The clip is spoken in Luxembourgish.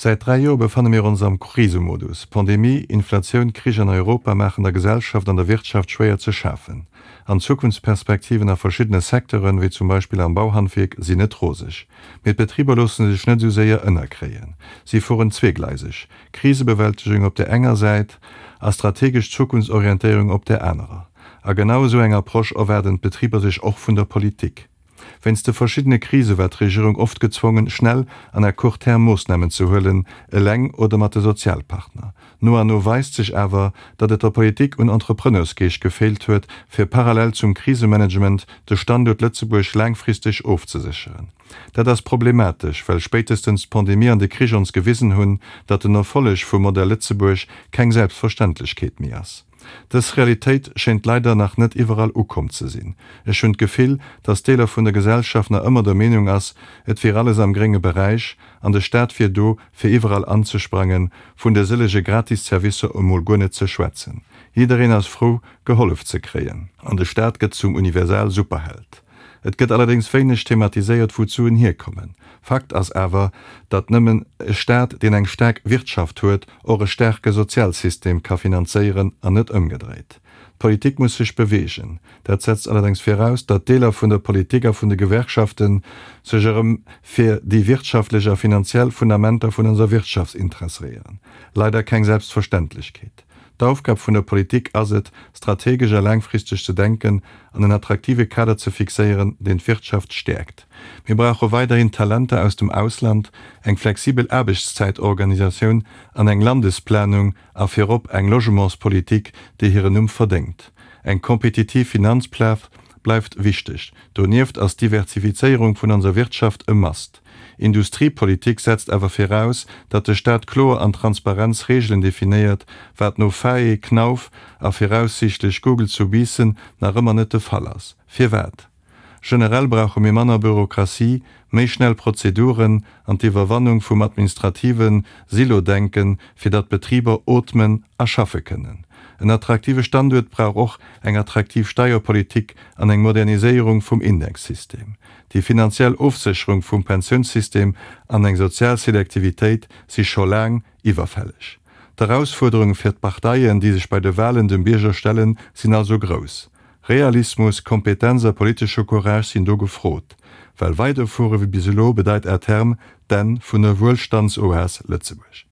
Säit 3 Joer befanne mir ons am Krisemodus. Pandemie, Inflatioun, Krich an Europa maachen der Gesellschaft an der Wirtschaft schwéier ze schafen. An d'Zukunftsperspektiven a verschiddene Secteuren, wéi zum Beispill am Bauhandwierk, sinn net roseg. Mee d'Betriber loosse sech net esou séier ënnerkréien. Si fueren zweegleiseg, Krisebewältegung op där enger Säit a strategesch Zukunftsorientéierung op där anerer. A genau esou eng Approche erwaarden d'Betriber sech och vun der Politik. Wéinst de verschiddene Krise war d'Regierung oft gezwongen, schnell an à court terme Moossnamen ze huelen, eleng oder mat de Sozialpartner. No an no weist sech awer, datt et der Politik un Entrepreneursgeescht gefeelt huet, fir parallel zum Krisemanagement de Standuert Lëtzebuerg laangfristeg ofzesécheren. Dat ass problematesch, well spéitestens d'Pandemie an de Krich ons gewisen hunn, datt den Erfolleg vum Modell Lëtzebuerg keng Selbstverständlechkeet méi ass. Dës Realitéit schéint leider nach net iwwerall ukomm ze sinn. Ech hunn d'Gefill, dass Deeler vun der Gesellschaft nach ëmmer der Meenung ass, et wier alles am grénge Beräich an de Staat wier do, fir iwwerall anzesprangen, vun de sëllege gratis Servicer emol guer net ze schwätzen. Jiddereen ass frou, gehollef ze kréien. An de Staat gëtt zum Universal-Superheld. Et gëtt allerdéngs wéineg thematiséiert, wou d'Suen hierkommen. Fakt ass awer, datt nëmmen e Staat, deen eng staark Wirtschaft huet, och e staarke Sozialsystem ka finanzéieren an net ëmgedréit. D'Politik muss sech beweegen. Dat setzt allerdéngs viraus, datt Deeler vun der Politik a vun de Gewerkschafte sech erëm fir déi wirtschaftlech a finanziell Fundamenter vun onser Wirtschaft interesséieren. Leider keng Selbstverständlechkeet. D'Aufgab vun der Politik ass et, strategesch a laangfristeg ze denken an en attraktive Kader ze fixéieren, deen d'Wirtschaft stäerkt. Mir brauche weiderhin Talenter aus dem Ausland, eng flexibel Aarbechtszäitorganisatioun an eng Landesplanung a virop eng Logementspolitik, déi hiren Numm verdéngt. Eng kompetitiv Finanzplaz bleift wichteg. Donieft ass d'Diversifizéierung vun onser Wirtschaft e Must. Industriepolitik setzt awer viraus, datt de Staat kloer an transparent Reegelen definéiert, wat no Faye, Knauf a viraussiichtlech Google zu Biissen nach ëmmer net de Fall ass. Firwat? Generell brauche mir manner Bürokratie, méi schnell Prozeduren an d'Iwwerwannung vum administrative Silo-Denken, fir datt d'Betriber ootmen a schaffe kënnen. En attraktive Standuert brauch och eng attraktiv Steierpolitik an eng Moderniséierung vum Indexsystem. Déi finanziell Ofsécherung vum Pensiounssystem an eng sozial Selektivitéit si scho laang iwwerfälleg. D'Erausfuerderunge fir d'Parteien, déi sech bei de Walen dem Bierger stellen, sinn also grouss. Realismus, Kompetenz a politesche Courage sinn do gefrot, well weiderfuere wéi bis elo bedeit à terme d'Enn vun der Wuelstandsoas Lëtzebuerg.